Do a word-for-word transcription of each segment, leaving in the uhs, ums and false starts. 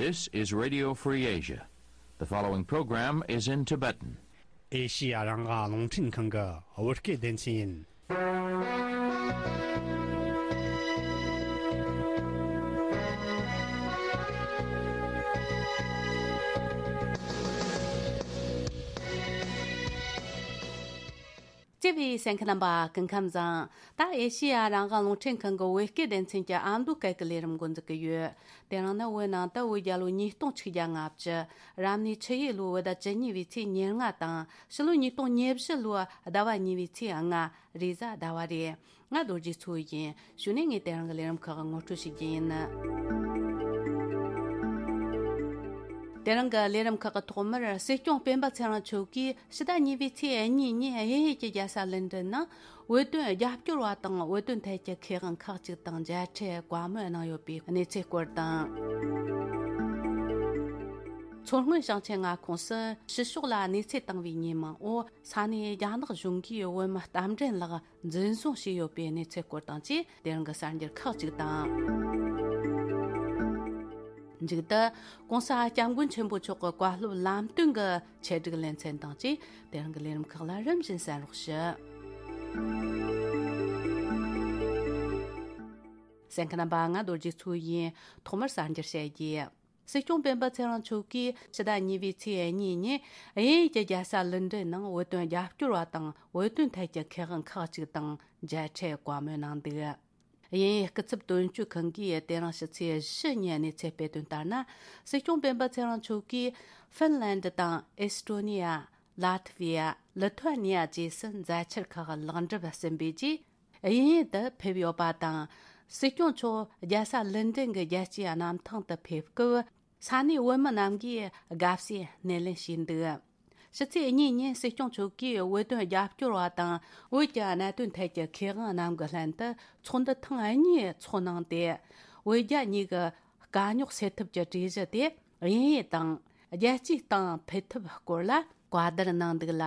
This is Radio Free Asia. The following program is in Tibetan. ཨེ་ཤི་ཡ་རང་དབང་རླུང་འཕྲིན་ཁང་གི་བོད་སྐད་སྡེ་ཚན་ཡིན། བརྩེ་བའི་གསན་མཁན་རྣམ་པ་སྐུ་ཁམས་བཟང་། ད་ཨེ་ཤི་ཡ་རང་དབང་རླུང་འཕྲིན་ཁང་གི་བོད་སྐད་སྡེ་ཚན་གྱི་ཨ་མདོ་སྐད་ཀྱི་ལས་རིམ་འགོ་འཛུགས་ཀྱི་ཡོད། དེ་རིང་ནི་བོད་ནང་དུ་བོད་རྒྱལ་ལོ་ཉིས་སྟོང་ཆིག་བརྒྱ་ལྔ་བཅུ། རབ་གནས་ཆུ་ཡོས་ལོའི་བོད་ཟླ་བཅུ་གཉིས་པའི་ཚེས་ཉེར་ལྔ་དང་ཕྱི་ལོ་ཉིས་སྟོང་ཉེར་བཞི་ལོའི་ཟླ་བ་གཉིས་པའི་ཚེས་ལྔ། རེས་གཟའ་ཟླ་བ་རེད། ང་རྡོ་རྗེ་མཚོ་ཡིན། གཞུག་ནས་ངས་དེ་རིང་གི་ལས་རིམ་ཁག་ངོ་སྤྲོད་བྱེད་རྒྱུ་ཡིན། དེ་རིང་གི་ལས་རིམ་ཁག་གི་ཐོག་མར་སྲིད་སྐྱོང་སྤེན་པ་ཚེ་རིང་མཆོག་གིས་ཕྱི་ཟླ་གཉིས་པའི་ཚེས་གཉིས་ཉིན་དབྱིན་ཡུལ་གྱི་རྒྱལ་ས་ལན་ཀྲན་ནང་བོད་དོན་རྒྱབ་སྐྱོར་བ་དང་བོད་དོན་ཐད་ཀྱི་མཁས་དབང་ཁག་ཅིག་དང་མཇལ་འཕྲད་བཀའ་མོལ་གནང་ཡོད་པའི་གནས་ཚུལ་སྐོར་དང་། མཚོ་སྔོན་ཞིང་ཆེན་མངའ་ཁོངས་སུ་ཕྱི་ཕྱོགས་ལ་གནས་ཚུལ་བཏང་བའི་ཉེས་མིང་འོག་ས་གནས་རྒྱ་ནག་གཞུང་གིས་བོད་མི་རྟ་མགྲིན་ལགས་འཛིན་བཟུང་བྱས་ཡོད་པའི་གནས་ཚུལ་སྐོར་དང་བཅས་དེ་རིང་གི་གསར་འགྱུར་ཁག་ཅིག་དང་། མཇུག་ཏུ་༸གོང་ས་༸སྐྱབས་མགོན་ཆེན་པོ་མཆོག་གི་བཀའ་སློབ་ལམ་སྟོན་གྱི་ཆེད་སྒྲིག་ལེ་ཚན་དང་བཅས་དེ་རིང་གི་ལས་རིམ་ཁག་ལ་རིམ་བཞིན་གསན་རོགས་ཞུ། གསན་མཁན་རྣམ་པ། ང་རྡོ་རྗེ་མཚོ་ཡིན། ཐོག་མར་གསར་འགྱུར་བཤད་རྒྱུ། སྲིད་སྐྱོང་སྤེན་པ་ཚེ་རིང་མཆོག་གིས་ཕྱི་ཟླ་གཉིས་པའི་ཚེས་གཉིས་ཉིན་དབྱིན་ཡུལ་གྱི་རྒྱལ་ས་ལོན་ཌོན་ནང་བོད་དོན་རྒྱབ་སྐྱོར་བ་དང་བོད་དོན་ཐད་ཀྱི་མཁས་དབང་ཁག་ཅིག་དང་མཇལ་འཕྲད་བཀའ་མོལ་གནང་འདུག། དབྱིན་ཡུལ་སྐུ་ཚབ་དོན་གཅོད་ཁང་གིས་དེ་རིང་ཕྱི་ཚེས་བཞི་ཉིན་གནས་ཚུལ་སྤེལ་དོན་ལྟར་ན། སྲིད་སྐྱོང་སྤེན་པ་ཚེ་རིང་མཆོག་གིས་ཧྥིན་ལན་ཌི་དང་ཨེས་ཏྲོ་ནི་ཡ། ལ་ཐི་ཝི་ཡ། ལི་ཐུ་ཨ་ནི་ཡ་བཅས་སུ་མཛའ་འཆར་ཁག་ལེགས་འགྲུབ་ཟིན་པའི་རྗེས། དབྱིན་ཡུལ་དུ་ཕེབས་ཡོད་པ་དང་། སྲིད་སྐྱོང་མཆོག་རྒྱལ་ས་ལོན་ཌོན་གྱི་རྒྱལ་སྤྱིའི་གནམ་ཐང་དུ་ཕེབས་སྐབས། ས་གནས་བོད་མི་རྣམས་ཀྱིས་དགའ་བསུའི་སྣེ་ལེན་བྱས་འདུག། ཕྱི་ཚེས་གཉིས་ཉིན་སྲིད་སྐྱོང་མཆོག་གིས་བོད་དོན་རྒྱབ་སྐྱོར་བ་དང་བོད་ཀྱི་གནད་དོན་ཐད་ཀྱི་མཁས་དབང་རྣམས་ཀྱི་ལྷན་དུ་ཚོགས་འདུ་ཐེངས་གཉིས་ཚོགས་གནང་སྟེ། བོད་རྒྱ་གཉིས་ཀྱི་དཀའ་རྙོག་སེལ་ཐབས་ཀྱི་གྲོས་གཞི་དེ་དབྱིན་ཡུལ་དང་རྒྱལ་སྤྱིའི་སྟེང་ཕུད་ཐབས་སྐོར་ལ་བཀའ་བསྡུར་གནང་འདུག་ལ།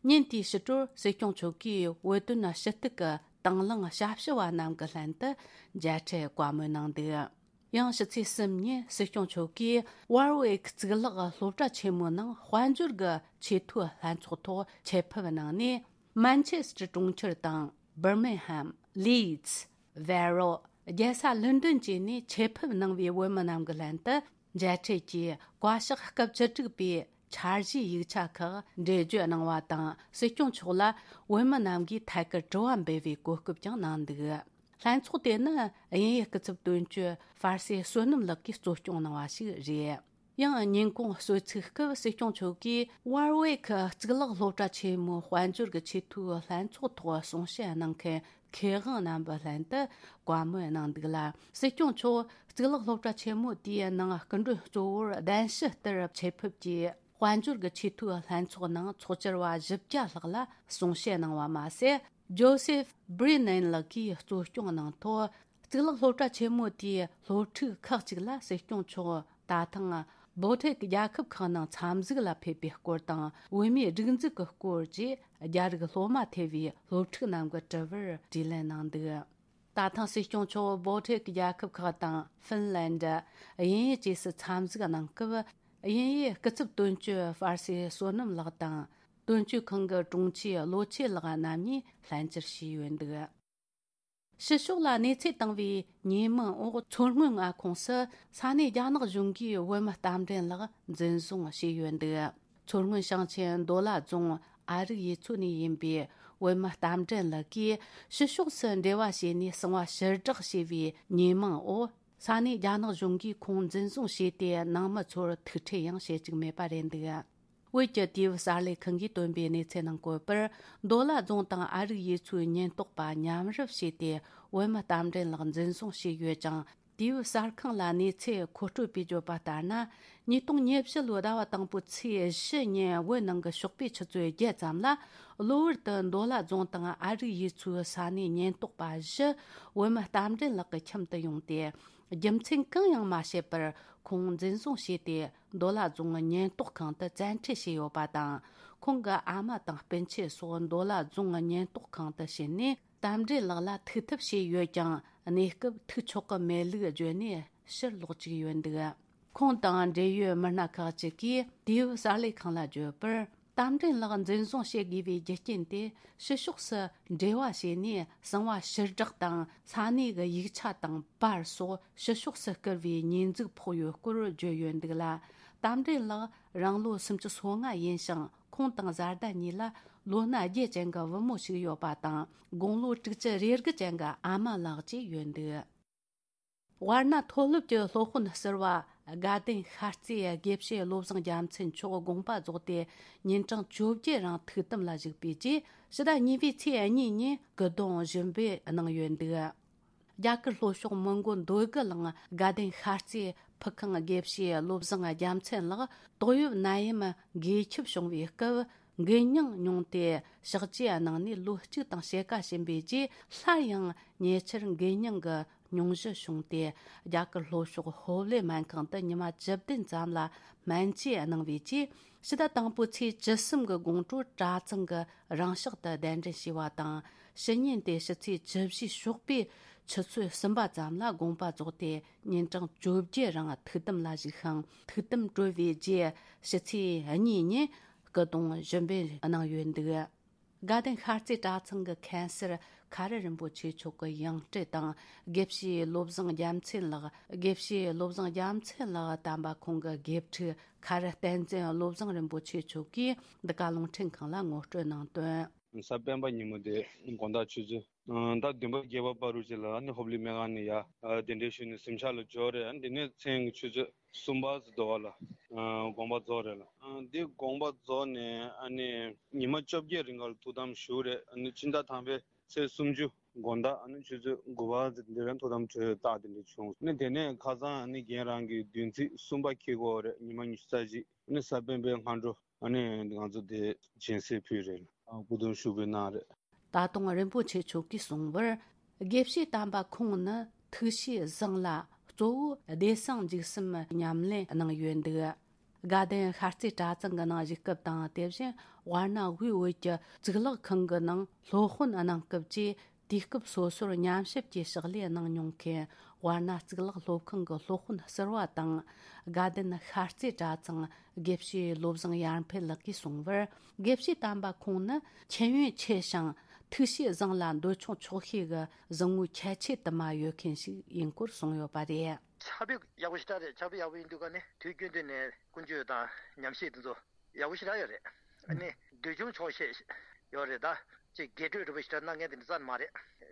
ཉིན་དེའི་ཕྱི་དྲོར་སྲིད་སྐྱོང་མཆོག་གིས་བོད་དོན་ཞུ་གཏུག་གི་དང་བླངས་ཞབས་ཞུ་བ་རྣམས་ཀྱི་ལྷན་དུ་མཇལ་འཕྲད་བཀའ་མོལ་གནང་འདུག། ཡང་ཕྱི་ཚེས་གསུམ་ཉིན་སྲིད་སྐྱོང་མཆོག་གིས་ཝར་ཝིག་གཙུག་ལག་སློབ་གྲྭ་ཆེན་མོའི་ནང་དཔལ་འབྱོར་གྱི་ཆེས་མཐོའི་ལྷན་ཚོགས་ཐོག་ཆེད་ཕེབས་གནང་ནས། མན་ཆེ་སི་ཊར་གྲོང་ཁྱེར་དང་། བར་མིང་ཧམ། ལིཌ། ཝེ་རོ། རྒྱལ་ས་ལོན་ཌོན་བཅས་ནས་ཆེད་ཕེབས་གནང་བའི་བོད་མི་རྣམས་ཀྱི་ལྷན་དུ་མཇལ་འཕྲད་ཀྱིས་བཀའ་ཤག་སྐབས་བཅུ་དྲུག་པའི་འཆར་གཞིའི་ཡིག་ཆ་ཁག་འགྲེལ་བརྗོད་གནང་བ་དང་། སྲིད་སྐྱོང་མཆོག་ལ་བོད་མི་རྣམས་ཀྱིས་ཐད་ཀར་དྲི་བ་འབུལ་བའི་གོ་སྐབས་ཀྱང་གནང་འདུག། ལྷན་ཚོགས་དེ་ནི་དབྱིན་ཡུལ་སྐུ་ཚབ་དོན་གཅོད་ཧྥར་སེ་བསོད་ནམས་ལགས་ཀྱིས་གཙོ་སྐྱོང་གནང་བ་ཞིག་རེད། ཡང་ཉིན་གུང་གསོལ་ཚིགས་སྐབས་སྲིད་སྐྱོང་མཆོག་གིས་ཝར་ཝེ་ཁི་གཙུག་ལག་སློབ་གྲྭ་ཆེན་མོའི་དཔལ་འབྱོར་གྱི་ཆེས་མཐོའི་ལྷན་ཚོགས་ཐོག་གསུང་བཤད་གནང་མཁན་མཁས་དབང་རྣམ་པའི་ལྷན་དུ་བཀའ་མོལ་གནང་འདུག་ལ། སྲིད་སྐྱོང་མཆོག་གཙུག་ལག་སློབ་གྲྭ་ཆེན་མོ་དེའི་ནང་སྐུ་མགྲོན་གཙོ་བོར་གདན་ཞུ་ལྟར་ཆེད་ཕེབས་ཀྱིས། དཔལ་འབྱོར་གྱི་ཆེས་མཐོའི་ལྷན་ཚོགས་ནང་ཚོགས་བཅར་བ་བཞི་བརྒྱ་ལྷག་ལ་གསུང་བཤད་གནང་བ་མ་ཟད། ཇོ་སེབ་བྷི་རི་ནན་ལགས་ཀྱིས་གཙོ་སྐྱོང་གནང་ཐོག་གཙུག་ལག་སློབ་གྲྭ་ཆེན་མོ་དེའི་སློབ་ཕྲུག་ཁག་ཅིག་ལ་སྲིད་སྐྱོང་མཆོག་ད་ཐེངས་བོ་ཊེག་རྒྱལ་ཁབ་ཁག་ནང་འཚམས་གཟིགས་ལ་ཕེབས་པའི་སྐོར་དང་། བོད་མིའི་སྒྲིག་འཛུགས་ཀྱི་སྐོར་བཅས་རྒྱ་རིགས་སློབ་མ་ཐེ་བའི་སློབ་ཕྲུག་རྣམས་ཀྱི་དྲི་བར་དྲིས་ལན་གནང་འདུག། ད་ཐེངས་སྲིད་སྐྱོང་མཆོག་བོ་ཊེག་རྒྱལ་ཁབ་ཁག་དང་ཧྥིན་ལན་ཌི། དབྱིན་ཡུལ་བཅས་སུ་འཚམས་གཟིགས་གནང་སྐབས། དབྱིན་ཡུལ་སྐུ་ཚབ་དོན་གཅོད་ཧྥར་སེ་བསོད་ནམས་ལགས་དང་། དོན་གཅོད་ཁང་གི་དྲུང་ཆེ་བློ་ཆོས་ལགས་རྣམ་གཉིས་ལྷན་བཅར་བྱས་ཡོད་འདུག། ཕྱི་ཕྱོགས་ལ་གནས་ཚུལ་བཏང་བའི་ཉེས་མིང་འོག་མཚོ་སྔོན་མངའ་ཁོངས་སུ་ས་གནས་རྒྱ་ནག་གཞུང་གིས་བོད་མི་རྟ་མགྲིན་ལགས་འཛིན་བཟུང་བྱས་ཡོད་འདུག། མཚོ་སྔོན་ཞིང་ཆེན་མདོ་ལ་རྫོང་ཨ་རིག་ཡུལ་ཚོ་ནས་ཡིན་པའི་བོད་མི་རྟ་མགྲིན་ལགས་ཀྱིས་ཕྱི་ཕྱོགས་སུ་འབྲེལ་བ་བྱས་ནས་གསང་བ་ཕྱིར་བསྒྲགས་བྱས་པའི་ཉེས་མིང་འོག་ས་གནས་རྒྱ་ནག་གཞུང་གིས་ཁོང་འཛིན་བཟུང་བྱས་ཏེ། ནང་མི་ཚོར་ཐུག་འཕྲད་ཡང་བྱེད་བཅུག་མེད་པ་རེད་འདུག། བོད་ཀྱི་དུས་བབ་གསར་ལས་ཁང་གིས་བཏོན་པའི་གནས་ཚུལ་ནང་བཀོད་པར། མདོ་ལ་རྫོང་དང་ཨ་རིག་ཡུལ་ཚོའི་ཉེན་རྟོག་པ་མཉམ་རུབ་བྱས་ཏེ། བོད་མི་རྟ་མགྲིན་ལགས་འཛིན་བཟུང་བྱས་ཡོད་ཅིང་། དུས་བབ་གསར་ཁང་ལ་གནས་ཚུལ་མཁོ་སྤྲོད་པས་བརྗོད་པ་ལྟར་ན། ཉིས་སྟོང་ཉེར་བཞི་ལོའི་ཟླ་བ་དང་པོའི་ཚེས་བཞི་ཉིན་བོད་ནང་གི་ཞོགས་པའི་ཆུ་ཚོད་བརྒྱད་ཙམ་ལ། གློ་བུར་དུ་མདོ་ལ་རྫོང་དང་ཨ་རིག་ཡུལ་ཚོའི་ས་གནས་ཉེན་རྟོག་པ་བཞི་བོད་མི་རྟ་མགྲིན་ལགས་ཀྱི་ཁྱིམ་དུ་ཡོང་སྟེ། རྒྱུ་མཚན་གང་ཡང་མ་བཤད་པར་ཁོང་འཛིན་བཟུང་བྱས་ཏེ། མདོ་ལ་རྫོང་གི་ཉེན་རྟོག་ཁང་དུ་བཙན་ཁྲིད་བྱས་ཡོད་པ་དང་། ཁོང་གི་ཨ་མ་དང་སྤུན་མཆེད་སོགས་མདོ་ལ་རྫོང་གི་ཉེན་རྟོག་ཁང་དུ་ཕྱིན་ནས། རྟ་མགྲིན་ལགས་ལ་ཐུག་ཐབས་བྱས་ཡོད་ཀྱང་། གནས་སྐབས་ཐུག་ཆོག་གི་མེད་ལུགས་བརྗོད་ནས་ཕྱིར་ལོག་བཅུག་ཡོད་འདུག། ཁོང་དང་འབྲེལ་ཡོད་མི་སྣ་ཁག་ཅིག་གིས་དུས་བབ་གསར་ལས་ཁང་ལ་བརྗོད་པར། རྟ་མགྲིན་ལགས་འཛིན་བཟུང་བྱེད་དགོས་པའི་རྒྱུ་རྐྱེན་དེ། ཕྱི་ཕྱོགས་སུ་འབྲེལ་བ་བྱས་ནས་གསང་བ་ཕྱིར་བསྒྲགས་དང་ས་གནས་ཀྱི་ཡིག་ཆ་དང་པར་སོགས་ཕྱི་ཕྱོགས་སུ་བསྐུར་བའི་ཉེས་འཛུགས་ཕོག་ཡོད་སྐོར་བརྗོད་ཡོད་འདུག་ལ། རྟ་མགྲིན་ལགས་རང་ལོ་སུམ་ཅུ་སོ་ལྔ་ཡིན་ཞིང་། ཁོང་དང་བཟའ་ཟླ་གཉིས་ལ་ལོ་ན་བརྒྱད་ཅན་གྱི་བུ་མོ་ཞིག་ཡོད་པ་དང་། དགུང་ལོ་དྲུག་ཅུ་རེ་དགུ་ཅན་གྱི་ཨ་མ་ལགས་བཅས་ཡོད་འདུག་དབར་ན་མཐོ་སློབ་ཀྱི་སློབ་དཔོན་ཟུར་པ་དགའ་ལྡན་ཤར་རྩེའི་དགེ་བཤེས་བློ་བཟང་རྒྱལ་མཚན་མཆོག་དགོངས་པ་རྫོགས་ཏེ། ཉིན་གྲངས་བཅོ་བརྒྱད་རིང་ཐུགས་དམ་ལ་བཞུགས་པའི་རྗེས། ཕྱི་ཟླ་གཉིས་པའི་ཚེས་གཉིས་ཉིན་སྐུ་གདུང་བཞུགས་འབུལ་གནང་ཡོད་འདུག་རྒྱ་གར་ལྷོ་ཕྱོགས་མོན་གྷོ་འདོད་རྒུ་གླིང་དགའ་ལྡན་ཤར་རྩེའི་ཕུ་ཁང་དགེ་བཤེས་བློ་བཟང་རྒྱལ་མཚན་ལགས། ཏོག་དབྱིབས་ནད་ཡམས་འགོས་ཁྱབ་བྱུང་བའི་སྐབས། འགོས་མྱངས་མྱོང་སྟེ་ཕྱག་བྲིས་གནང་ནས་ལོ་གཅིག་དང་ཕྱེད་ཀ་ཕྱིན་པའི་རྗེས། སླར་ཡང་ཉེ་ཆར་འགོས་མྱངས་ཀྱི་སྙུང་གཞི་བྱུང་སྟེ། རྒྱ་གར་ལྷོ་ཕྱོགས་ཧོབ་ལེ་སྨན་ཁང་དུ་ཉི་མ་བཅུ་བདུན་ཙམ་ལ་སྨན་བཅོས་གནང་བའི་རྗེས། ཕྱི་ཟླ་དང་པོའི་ཚེས་བཅུ་གསུམ་གྱི་དགོང་དྲོ་གྲྭ་ཚང་གི་རང་ཕྱག་ཏུ་གདན་འདྲེན་བྱས་པ་དང་། ཕྱི་ཉིན་ཏེ་ཕྱི་ཚེས་བཅུ་བཞི་ཞོགས་པའི་ཆུ་ཚོད་གསུམ་པ་ཙམ་ལ་དགོངས་པ་རྫོགས་ཏེ། ཉིན་གྲངས་བཅོ་བརྒྱད་རིང་ཐུགས་དམ་ལ་བཞུགས་ཤིང་། ཐུགས་དམ་གྲོལ་བའི་རྗེས་ཕྱི་ཚེས་གཉིས་ཉིན་སྐུ་གདུང་ཞུ་འབུལ་གནང་ཡོད་འདུག་དགའ་ལྡན་ཤར་རྩེ་གྲྭ་ཚང་གི་མཁན་ཟུར་ཁ་རི་རིན་པོ་ཆེ་མཆོག་གི་ཡང་སྤྲུལ་དང་། དགེ་བཤེས་བློ་བཟང་རྒྱལ་མཚན་ལགས། དགེ་བཤེས་བློ་བཟང་རྒྱལ་མཚན་ལགས་དམ་པ་ཁོང་གི་དགེ་ཕྲུག་ཁ་རི་བསྟན་འཛིན་བློ་བཟང་རིན་པོ་ཆེ་མཆོག་གིས་འདི་ག་རླུང་འཕྲིན་ཁང་ལ་ངོ་སྤྲོད་གནང་དོན། གཟའ་སྤེན་པ་ཉིན་མོ་དེ་དགོང་དག་ཆུ་ཚོད་ཟླ་བདུན་པ་བརྒྱད་པ་བར་དུ་ཅིག་ལ་ནི་ཧོབ་ལི་སྨན་ཁང་ནས་ཡར་གདན་འདྲེན་ཞུས་ནས་གཟིམ་ཤག་ལ་འབྱོར་རེད། དེ་ནས་མཚན་གྱི་ཆུ་ཚོད་གསུམ་པ་ཙམ་འདྲ་བ་ལ་དགོངས་པ་རྫོགས་རེད་ལ། འདི་དགོངས་པ་རྫོགས་ནས་ཨ་ནི་ཉི་མ་བཅོ་བརྒྱད་རིང་ག་ལ་ཐུགས་དམ་བཞུགས་རེད། ཨ་ནི་ཕྱི་ཟླ་དང་པའི་ཚེས་སུམ་ཅུ་དགོང་དག་ཨ་ནི་ཆུ་ཚོད་དགུ་པ་ཙམ་འདི་རིང་ཐུགས་དམ་གྲོལ་རྟགས་དེ་འདྲ་བྱུང་། ཨ་ནི་དེ་ནས་ཁ་སང་ཨ་ནི་རྒན་རང་གི་བདུན་ཚིགས་གསུམ་པ་འཁེལ་གྱི་ཡོད་རེད། ཉི་མ་ཉི་ཤུ་རྩ་གཅིག་ཨ་ནི་གཟའ་སྤེན་པའི་སྔ་དྲོ། ཨ་ནི་ང་ཚོ་དེ་སྦྱིན་སྲེག་ཕུལ་རེད། སྐུ་གདུང་ཞུ་འབུལ་གནང་རེད། ད་དུང་རིན་པོ་ཆེ་མཆོག་གིས་གསུངས་པར། དགེ་བཤེས་དམ་པ་ཁོང་ནི་ཐུགས་གཤིས་བཟང་ལ། གཙོ་བོ་བདེ་གསང་འཇིགས་གསུམ་ཉམས་ལེན་གནང་ཡོད་འདུག་དགའ་ལྡན་ཤར་རྩེ་གྲྭ་ཚང་གི་ནང་བཞུགས་སྐབས་དང་། དེ་བཞིན་དབར་ན་དབུས་བོད་ཀྱི་གཙུག་ལག་ཁང་གི་ནང་སློབ་དཔོན་གནང་སྐབས་ཀྱི། དུས་སྐབས་སོ་སོར་ཉམས་ཞིབ་ཀྱི་ཕྱག་ལས་གནང་མྱོང་མཁན་དབར་ན་གཙུག་ལག་སློབ་ཁང་གི་སློབ་དཔོན་ཟུར་པ་དང་། དགའ་ལྡན་ཤར་རྩེ་གྲྭ་ཚང་དགེ་བཤེས་བློ་བཟང་ཡར་འཕེལ་ལགས་ཀྱིས་གསུངས་པར། དགེ་བཤེས་དམ་པ་ཁོང་ནི་མཁྱེན་ཡོན་ཆེ་ཞིང་ཐུགས་གཤིས་བཟང་ལ། འདོད་ཆུང་ཆོག་ཤེས་ཀྱི་གཟིགས་མོ་ཁྱད་ཆོས་དུ་མ་ཡོད་མཁན་ཞིག་ཡིན་སྐོར་གསུངས་ཡོད་པ་རེད། ཕྱག་དཔེ་ཡག་པོ་ཞེ་དྲག་རེད། ཕྱག་དཔེ་ཡག་པོ་ཡིན་དུས་ཀ་ནས་དུས་རྒྱུན་དུ་ནས་ཀུན་སྤྱོད་དང་ཉམས་ཞིབ་དེ་ཚོ་ཡག་པོ་ཞེ་དྲག་ཡོད་རེད། ཨ་ནི་འདོད་ཆུང་ཆོག་ཤེས་ཡོད་རེད་ད། ཅིག་རྒྱས་སྤྲོས་རིམ་པ་ཞིག་གནང་མཁན་དེ་འདྲ་རྩ་ནས་མ་རེད།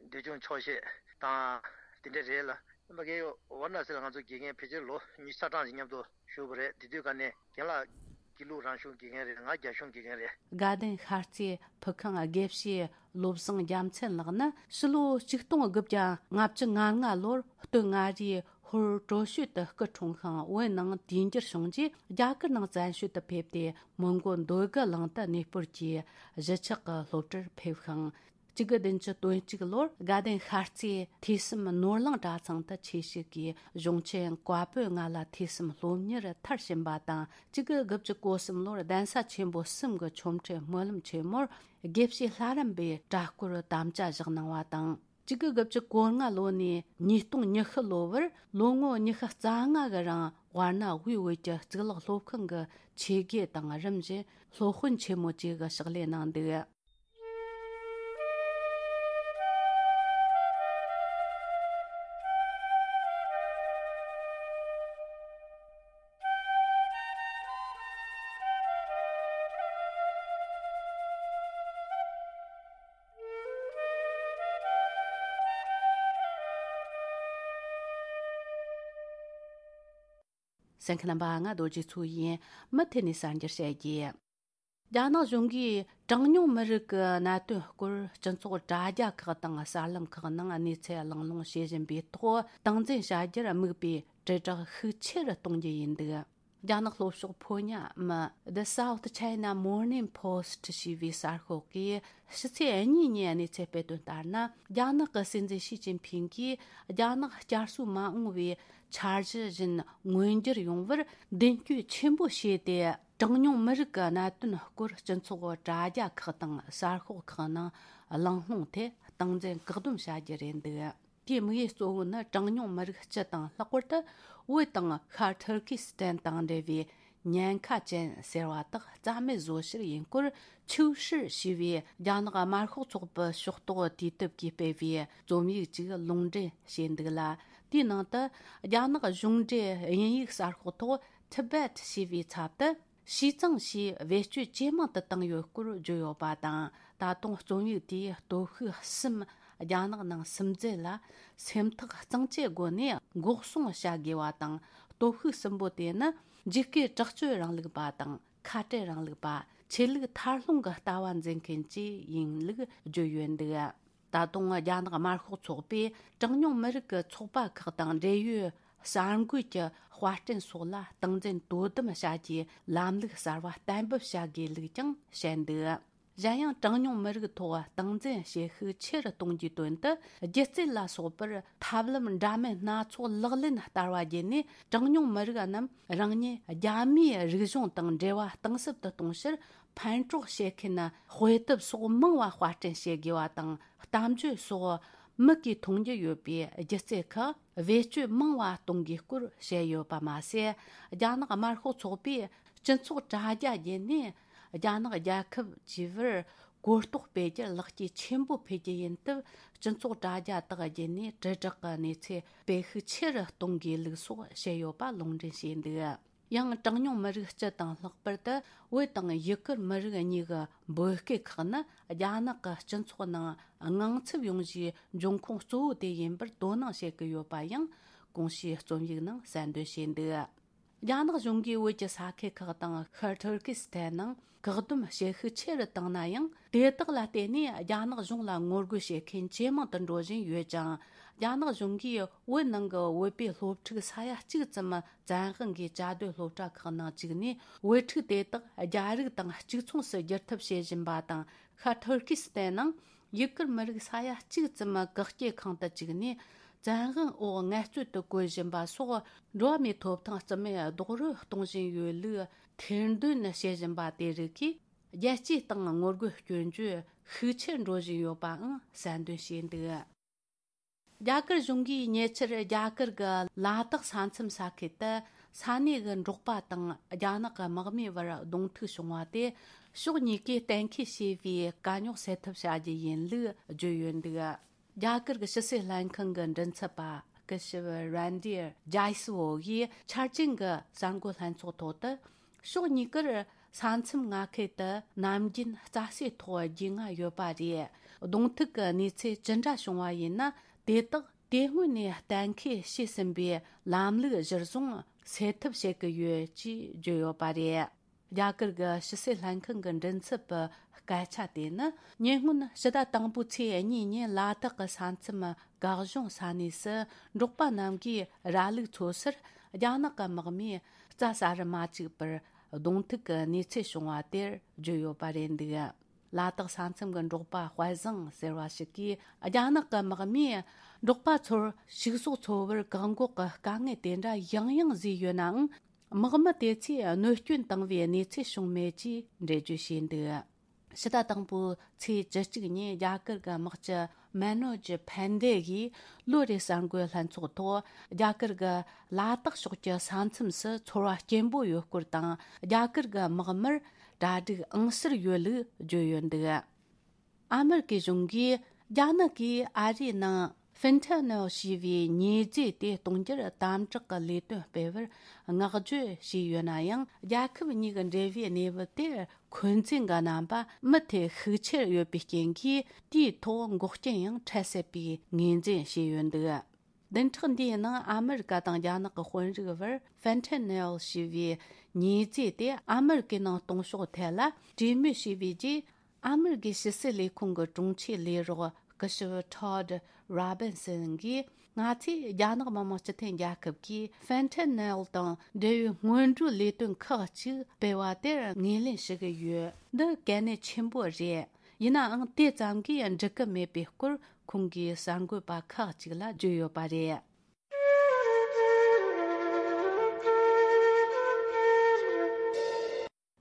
འདོད་ཆུང་ཆོག་ཤེས་དང་དེ་འདྲ་རེད་ལ། མ་གི་ཝཱ་ར་ཎ་སི་ལ་ང་ཚོ་དགེ་རྒན་ཕལ་ཆེར་ལོ་ཉི་ཤུ་རྩ་གྲངས་ཀྱི་མཉམ་དུ་བཞུགས་པ་རེད། དེ་དུས་ཀ་ནས་རྒན་ལགས་དགེ་ལུགས་རང་གཞུང་དགེ་རྒན་རེད། ང་རྒྱ་གཞུང་དགེ་རྒན་རེད། དགའ་ལྡན་ཤར་རྩེའི་ཕུ་ཁང་དགེ་བཤེས་བློ་བཟང་རྒྱལ་མཚན་ལགས་ནི་ཕྱི་ལོ་ཆིག་སྟོང་དགུ་བརྒྱ་ལྔ་བཅུ་ང་ལྔ་ལོར་སྟོད་མངའ་རིས་ཧོར་ཀྲོ་ཤུ་ཏུ་སྐུ་འཁྲུངས་ཤིང་། བོད་ནང་དུས་འགྱུར་བྱུང་རྗེས་རྒྱ་གར་ནང་བཙན་བྱོལ་དུ་ཕེབས་ཏེ། མོན་གྷོ་འདོད་རྒུ་གླིང་དུ་གནས་སྤོར་གྱིས་གཞིས་ཆགས་ཀྱི་སློབ་གྲྭར་ཕེབས་ཤིང་། གཅིག་དགུ་བདུན་ཅུ་དོན་གཅིག་ལོར་དགའ་ལྡན་ཤར་རྩེའི་ཐོས་བསམ་ནོར་གླིང་གྲྭ་ཚང་དུ་ཆོས་ཞུགས་ཀྱིས། གཞུང་ཆེན་བཀའ་པོད་ལྔ་ལ་ཐོས་བསམ་སློབ་གཉེར་མཐར་ཕྱིན་པ་དང་། གཅིག་དགུ་དགུ་བཅུ་གོ་གསུམ་ལོར་གདན་ས་ཆེན་པོ་གསུམ་གྱི་ཆོ་འཕྲུལ་སྨོན་ལམ་ཆེན་མོར་དགེ་བཤེས་ལྷ་རམས་པའི་གྲྭ་སྐོར་དམ་བཅའ་བཞག་གནང་བ་དང་། གཅིག་དགུ་དགུ་བཅུ་གོ་ལྔ་ལོ་ནས་ཉིས་སྟོང་ཉི་ཤུ་ལོ་བར་ལོ་ངོ་ཉི་ཤུ་རྩ་ལྔ་གི་རིང་ཝཱ་ར་ཎ་དབུས་བོད་ཀྱི་གཙུག་ལག་སློབ་ཁང་གི་ཆོས་དགེ་དང་། རིམ་བཞིན་སློབ་དཔོན་ཆེན་མོ་བཅས་ཀྱི་ཕྱག་ལས་གནང་འདུག་གསན་མཁན་རྣམ་པ། ང་རྡོ་རྗེ་མཚོ་ཡིན། མུ་མཐུད་ནས་གསར་འགྱུར་བཤད་རྒྱུ། རྒྱ་ནག་གཞུང་གིས་གྲངས་ཉུང་མི་རིགས་ཀྱི་གནད་དོན་སྐོར་སྤྱི་ཚོགས་དྲ་རྒྱ་ཁག་དང་གསར་ལམ་ཁག་ནང་གནས་ཚུལ་གླེང་སློང་བྱེད་བཞིན་པའི་ཐོག། སྟངས་འཛིན་བྱ་རྒྱུར་དམིགས་པའི་དྲིལ་བསྒྲགས་ཤུགས་ཆེ་རུ་གཏོང་རྒྱུ་ཡིན་འདུག་རྒྱ་ནག་ལྷོ་ཕྱོགས་ཕོ་ཉ་མི་The South China Morning Post ཞེས་པའི་གསར་ཤོག་གིས་ཕྱི་ཚེས་གཉིས་ཉིན་གནས་ཚུལ་སྤེལ་དོན་ལྟར་ན། རྒྱ་ནག་གི་སྲིད་འཛིན་ཞི་ཅིན་ཕིང་གིས་རྒྱ་ནག་བསྐྱར་གསོ་མ་འོངས་པའི་འཆར་གཞི་བཞིན་མངོན་འགྱུར་ཡོང་བར་མདུན་སྐྱོད་ཆེན་པོ་བྱས་ཏེ། གྲངས་ཉུང་མི་རིགས་ཀྱི་གནད་དོན་སྐོར་སྤྱི་ཚོགས་དྲ་རྒྱ་ཁག་དང་གསར་ཤོག་ཁག་ནང་གླེང་སློང་ཐད་སྟངས་འཛིན་བཀག་སྡོམ་བྱ་རྒྱུ་རེད་འདུག་དེའི་དམིགས་ཡུལ་གཙོ་བོ་ནི་གྲངས་ཉུང་མི་རིགས་སྤྱི་དང་ལྷག་པར་དུ་བོད་དང་ཤར་ཐུར་ཁི་སི་ཐན་དང་འབྲེལ་བའི་ཉེན་ཁ་ཅན་ཟེར་བ་དག་རྩ་མེད་བཟོ་ཕྱིར་ཡིན་སྐོར་ཆིའུ་ཧྲི་ཞེས་པའི་རྒྱ་ནག་དམར་ཤོག་ཚོགས་པའི་ཕྱོགས་གཏོགས་དུས་དེབ་ཀྱིས་སྤེལ་བའི་རྩོམ་ཡིག་ཅིག་ལུང་འདྲེན་བྱས་འདུག་ལ། དེའི་ནང་དུ་རྒྱ་ནག་གཞུང་འབྲེལ་དབྱིན་ཡིག་གསར་ཤོག་ཐོག་Tibet་ཞེས་པའི་ཚབ་ཏུ། ཞུས་ཙང་ཞེས་བེད་སྤྱོད་ཇེ་མང་དུ་བཏང་ཡོད་སྐོར་བརྗོད་ཡོད་པ་དང་། ད་དུང་རྩོམ་ཡིག་དེའི་སྟོབས་ཤུགས་གསུམ་རྒྱ་ནག་ནང་སིམ་འཛུལ་ལ་སེམས་ཐག་གཙང་བཅད་སྒོ་ནས་འགོག་སྲུང་བྱ་དགོས་པ་དང་། སྟོབས་ཤུགས་གསུམ་པོ་དེ་ནི་འཇིགས་སྐུལ་དྲག་སྤྱོད་རིང་ལུགས་པ་དང་། ཁ་བྲལ་རིང་ལུགས་པ། ཆོས་ལུགས་མཐའ་སློང་གི་ལྟ་བ་འཛིན་མཁན་བཅས་ཡིན་ལུགས་བརྗོད་ཡོད་འདུག་ད་དུང་རྒྱ་ནག་དམར་ཤོག་ཚོགས་པས་གྲངས་ཉུང་མི་རིགས་ཀྱི་ཚོགས་པ་ཁག་དང་འབྲེལ་ཡོད་གསར་འགོད་ཀྱི་དཔར་སྐྲུན་སོགས་ལ་སྟངས་འཛིན་དོ་དམ་བྱ་རྒྱུའི་ལམ་ལུགས་གསར་བ་གཏན་འབེབས་བྱ་དགོས་ལུགས་ཀྱང་བཤད་འདུག་གཞན་ཡང་གྲངས་ཉུང་མི་རིགས་ཐོག་སྟངས་འཛིན་བྱེད་ཤུགས་ཆེ་རུ་གཏོང་རྒྱུའི་དོན་དུ་སྒྱུ་རྩལ་ལ་སོགས་པར་ཐབས་ལམ་འདྲ་མིན་སྣ་ཚོགས་ལག་ལེན་བསྟར་བ་བརྒྱུད་ནས་གྲངས་ཉུང་མི་རིགས་རྣམས་རང་ཉིད་རྒྱ་མིའི་རིག་གཞུང་དང་འབྲེལ་བ་གཏིང་ཟབ་ཏུ་གཏོང་ཕྱིར། ཕན་གྲོགས་བྱེད་མཁན་དཔེ་དེབ་སོགས་མང་བ་དཔར་སྐྲུན་བྱེད་དགོས་པ་དང་། གཏམ་བརྗོད་སོགས་མིག་གིས་མཐོང་རྒྱུ་ཡོད་པའི་སྒྱུ་རྩལ་ཁག་བེད་སྤྱོད་མང་བ་གཏོང་དགོས་སྐོར་བཤད་ཡོད་པ་མ་ཟད། རྒྱ་ནག་དམར་ཤོག་ཚོགས་པས་སྤྱི་ཚོགས་དྲ་རྒྱ་བརྒྱུད་ནས་རྒྱ་ནག་རྒྱལ་ཁབ་བཅས་པར་གོ་རྟོགས་སྤེལ་རྒྱུར་ལེགས་སྐྱེས་ཆེན་པོ་ཕུལ་རྒྱུ་ཡིན་སྟབས། སྤྱི་ཚོགས་དྲ་རྒྱ་དག་བརྒྱུད་ནས་དྲིལ་བསྒྲགས་ཀྱི་གནས་ཚད་སྤེལ་ཤུགས་ཆེ་རུ་གཏོང་དགོས་ལུགས་སོགས་བཤད་ཡོད་པ་ལུང་འདྲེན་བྱས་འདུག་ཡང་གྲངས་ཉུང་མི་རིགས་སྤྱི་དང་ལྷག་པར་དུ་བོད་དང་ཡུ་གུར་མི་རིགས་གཉིས་ཀྱི་འབོད་སྐུལ་ཁག་ནི་རྒྱ་ནག་གི་སྤྱི་ཚོགས་ནང་དངངས་འཚབ་ཡོང་གཞིའི་འབྱུང་ཁུངས་གཙོ་བོ་དེ་ཡིན་པར་དོ་སྣང་བྱེད་ཀྱི་ཡོད་པ་ཡང་གོང་ཞུས་རྩོམ་ཡིག་ནང་གསལ་འདོན་བྱས་འདུག་རྒྱ་ནག་གཞུང་གིས་བོད་ཀྱི་ས་ཁུལ་ཁག་དང་ཤར་ཐུར་ཀི་སི་ཐན་ནང་བཀག་སྡོམ་བྱེད་ཤུགས་ཆེ་རུ་བཏང་ན་ཡང་། དེ་དག་ལ་བརྟེན་ནས་རྒྱ་ནག་གཞུང་ལ་ངོ་རྒོལ་བྱེད་མཁན་ཇེ་མང་དུ་འགྲོ་བཞིན་ཡོད་ཅིང་། རྒྱ་ནག་གཞུང་གིས་བོད་ནང་གི་བོད་པའི་སློབ་ཕྲུག་ས་ཡ་གཅིག་ཙམ་བཙན་དབང་གིས་བཅའ་སྡོད་སློབ་གྲྭ་ཁག་ནང་བཅུག་ནས། བོད་ཕྲུག་དེ་དག་རྒྱ་རིགས་དང་གཅིག་མཚུངས་སུ་བསྒྱུར་ཐབས་བྱེད་བཞིན་པ་དང་། ཤར་ཐུར་ཀི་སི་ཐན་ནང་ཡུ་གུར་མི་རིགས་ས་ཡ་གཅིག་ཙམ་བཀག་སྐྱིལ་ཁང་དུ་བཅུག་ནས། བཙན་དབང་འོག་ངལ་རྩོལ་དུ་བཀོལ་བཞིན་པ་སོགས། འགྲོ་བ་མིའི་ཐོབ་ཐང་རྩིས་མེད་རྡོག་རོལ་གཏོང་བཞིན་ཡོད་ལུགས་ཐེར་འདོན་བྱེད་བཞིན་པ་དེ་རིགས་ཀྱིས། རྒྱལ་སྤྱིའི་སྟེང་ངོ་རྒོལ་སྐྱོན་བརྗོད་ཤུགས་ཆེར་འགྲོ་བཞིན་ཡོད་པའང་གསལ་འདོན་བྱས་འདུག་རྒྱ་གར་གཞུང་གིས་ཉེ་ཆར་རྒྱ་གར་གྱི་ལ་དྭགས་ས་མཚམས་ས་ཁུལ་དུ་ས་གནས་ཀྱི་འབྲོག་པ་དང་རྒྱ་ནག་གི་དམག་མིའི་བར་གདོང་ཐུག་བྱུང་བ་དེ། ཕྱོགས་གཉིས་ཀས་གཏན་འཁེལ་བྱས་པའི་དཀའ་རྙོག་སེལ་ཐབས་བྱ་རྒྱུ་ཡིན་ལུགས་བརྗོད་ཡོད་འདུག་རྒྱ་གར་གྱི་ཕྱི་སྲིད་ལྷན་ཁང་གི་མགྲིན་ཚབ་པ་སྐུ་ཞབས་རན་དིར་ཇའི་སི་ཝོ་ཡིས་འཆར་ཅན་གྱི་གསར་འགོད་ལྷན་ཚོགས་ཐོག་ཏུ། ཕྱོགས་གཉིས་ཀར་ས་མཚམས་མངའ་ཁུལ་དུ་ནམ་རྒྱུན་རྩྭ་སའི་ཐོག་རྒྱུས་མངའ་ཡོད་པ་རེད། གདོང་ཐུག་གི་གནས་ཚུལ་ཅི་འདྲ་བྱུང་བ་ཡིན་ན། དེ་དག་དེ་སྔོན་ནས་གཏན་འཁེལ་བྱས་ཟིན་པའི་ལམ་ལུགས་གཞིར་བཟུང་སེལ་ཐབས་བྱེད་ཀྱི་ཡོད་ཅེས་བརྗོད་ཡོད་པ་རེད། རྒྱ་གར་གྱི་ཕྱི་སྲིད་ལྷན་ཁང་གི་མགྲིན་ཚབ་པའི་སྐད་ཆ་དེ་ནི། ཉེ་སྔོན་ཕྱི་ཟླ་དང་པོའི་ཚེས་གཉིས་ཉིན་ལ་དྭགས་ཀྱི་ས་མཚམས་གག་གཞུང་ས་གནས་སུ་འབྲོག་པ་རྣམས་ཀྱིས་ར་ལུག་འཚོ་སར་རྒྱ་ནག་གི་དམག་མིས་རྩྭ་ཟ་རུ་མ་བཅུག་པར་གདོང་ཐུག་གི་གནས་ཚུལ་བྱུང་བ་དེར་བརྗོད་ཡོད་པ་རེད་འདུག་ལ་དྭགས་ས་མཚམས་ཀྱི་འབྲོག་པ་དཔལ་བཟང་ཟེར་བ་ཞིག་གིས། རྒྱ་ནག་གི་དམག་མིས་འབྲོག་པ་ཚོར་ཕྱུགས་ཟོག་འཚོ་བར་བཀག་འགོག་གི་དཀའ་ངལ་དེ་འདྲ་ཡང་ཡང་བཟོས་ཡོད་ནའང་། དམག་མི་དེ་ཚོས་གནོད་སྐྱོན་བཏང་བའི་གནས་ཚུལ་བྱུང་མེད་ཅེས་འགྲེལ་བརྗོད་བྱས་འདུག་ཕྱི་ཟླ་དང་པོའི་ཚེས་བཅུ་གཅིག་ཉིན་རྒྱ་གར་གྱི་དམག་སྤྱི་མེ་ནོ་ཇི་ཕན་དེ་ཡིས་ལོ་རེའི་གསར་འགོད་ལྷན་ཚོགས་ཐོག་རྒྱ་གར་གྱི་ལ་དྭགས་ཕྱོགས་ཀྱི་ས་མཚམས་སུ་ཚོར་བ་སྐྱེན་པོ་ཡོད་སྐོར་དང་། རྒྱ་གར་གྱི་དམག་མིར་གྲ་སྒྲིག་ཨང་གསར་ཡོད་ལུགས་བརྗོད་ཡོད་འདུག་ཨ་མེ་རི་ཀའི་གཞུང་གིས་རྒྱ་ནག་གིས་ཨ་རིའི་ནང་ཧྥེན་ཐེ་ནེལ་ཞེས་པའི་ཉེས་རྫས་དེ་གཏོང་རྒྱུར་དམ་དྲག་གི་ལས་དོན་སྤེལ་བར་བསྔགས་བརྗོད་བྱས་ཡོད་ན་ཡང་། རྒྱལ་ཁབ་གཉིས་ཀྱི་འབྲེལ་བའི་གནས་བབ་དེར་འཁོན་འཛིན་གྱི་རྣམ་པ་མུ་མཐུད་ཤུགས་ཆེར་ཡོད་པའི་རྐྱེན་གྱིས། དེའི་ཐོག་འགོག་རྐྱེན་ཡང་འཕྲད་སྲིད་པའི་ངོས་འཛིན་བྱས་ཡོད་འདུག་བདུན་ཕྲག་འདིའི་ནང་ཨ་མེ་རི་ཀ་དང་རྒྱ་ནག་གི་དཔོན་རིགས་བར་ཧྥེན་ཐེ་ནེལ་ཞེས་པའི་ཉེས་རྫས་དེ་ཨ་མེ་རི་ཀའི་ནང་གཏོང་ཕྱོགས་ཐད་ལ་གྲོས་མོལ་བྱས་པའི་རྗེས། ཨ་མེ་རི་ཀའི་ཕྱི་སྲིད་ལས་ཁུངས་ཀྱི་དྲུང་ཆེ་ལས་རོགས་སྐུ་ཞབས་ཊོཌ་རོ་བིན་སན་གྱིས། ང་ཚོས་རྒྱ་ནག་མི་དམངས་སྤྱི་མཐུན་རྒྱལ་ཁབ་ཀྱིས་ཧྥེན་ཐེ་ནེལ་དང་འབྲེལ་བའི་སྔོན་འགྲོའི་ལས་དོན་ཁག་ཅིག་སྤེལ་བ་དེར་ངོས་ལེན་ཞུ་གི་ཡོད། འདི་གལ་གནད་ཆེན་པོ་རེད། ཡིན་ནའང་དེ་ཙམ་གྱིས་འགྲིག་གི་མེད་པའི་སྐོར་ཁོང་གིས་གསར་འགོད་པ་ཁག་ཅིག་ལ་བརྗོད་ཡོད་པ་རེད།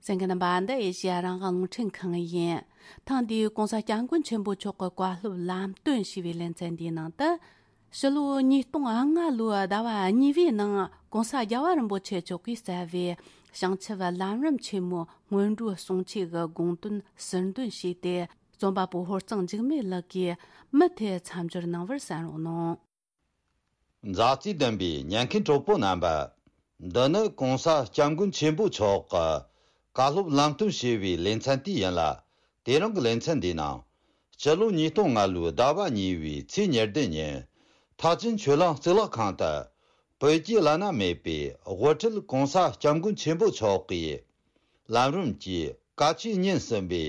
གསན་མཁན་རྣམ་པ། འདི་ཨེ་ཤེ་ཡ་རང་དབང་རླུང་འཕྲིན་ཁང་ཡིན། ཐེངས་འདིའི་༸གོང་ས་༸སྐྱབས་མགོན་ཆེན་པོ་མཆོག་གི་བཀའ་སློབ་ལམ་སྟོན་ཞེས་པའི་ལེ་ཚན་འདིའི་ནང་དུ། ཕྱི་ལོ་ཉིས་སྟོང་ལྔ་ལོའི་ཟླ་བ་གཉིས་པའི་ནང་༸གོང་ས་རྒྱལ་བ་རིན་པོ་ཆེ་མཆོག་གིས་བསྩལ་བའི་བྱང་ཆུབ་ལམ་རིམ་ཆེན་མོའི་སྔོན་འགྲོའི་གསུང་ཆོས་ཀྱི་དགོངས་དོན་ཟུར་འདོན་བྱས་ཏེ། རྩོམ་པ་པོ་ཧོར་གཙང་འཇིགས་མེད་ལགས་ཀྱིས་མུ་མཐུད་མཚམས་སྦྱོར་གནང་བར་གསན་རོགས་གནང་། མཛའ་བརྩེ་ལྡན་པའི་ཉན་མཁན་གྲོགས་པོ་རྣམ་པ། འདི་ནི་༸གོང་ས་སྐྱབས་མགོན་ཆེན་པོ་མཆོག་གི་བཀའ་སློབ་ལམ་སྟོན་ཞེས་པའི་ལེ་ཚན་དེ་ཡིན་ལ། དེ་རིང་གི་ལེ་ཚན་འདིའི་ནང་། སྤྱི་ལོ་ཉིས་སྟོང་ལྔ་ལོའི་ཟླ་བ་གཉིས་པའི་ཚེས་ཉེར་བདུན་ཉིན། ཐེག་ཆེན་ཆོས་གླིང་གཙུག་ལག་ཁང་དུ། བོད་ཀྱི་བླ་ན་མེད་པའི་དབུ་ཁྲིད་༸གོང་ས་སྐྱབས་མགོན་ཆེན་པོ་མཆོག་གིས། ལམ་རིམ་གྱི་བཀའ་ཆོས་ཉིན་གསུམ་པའི་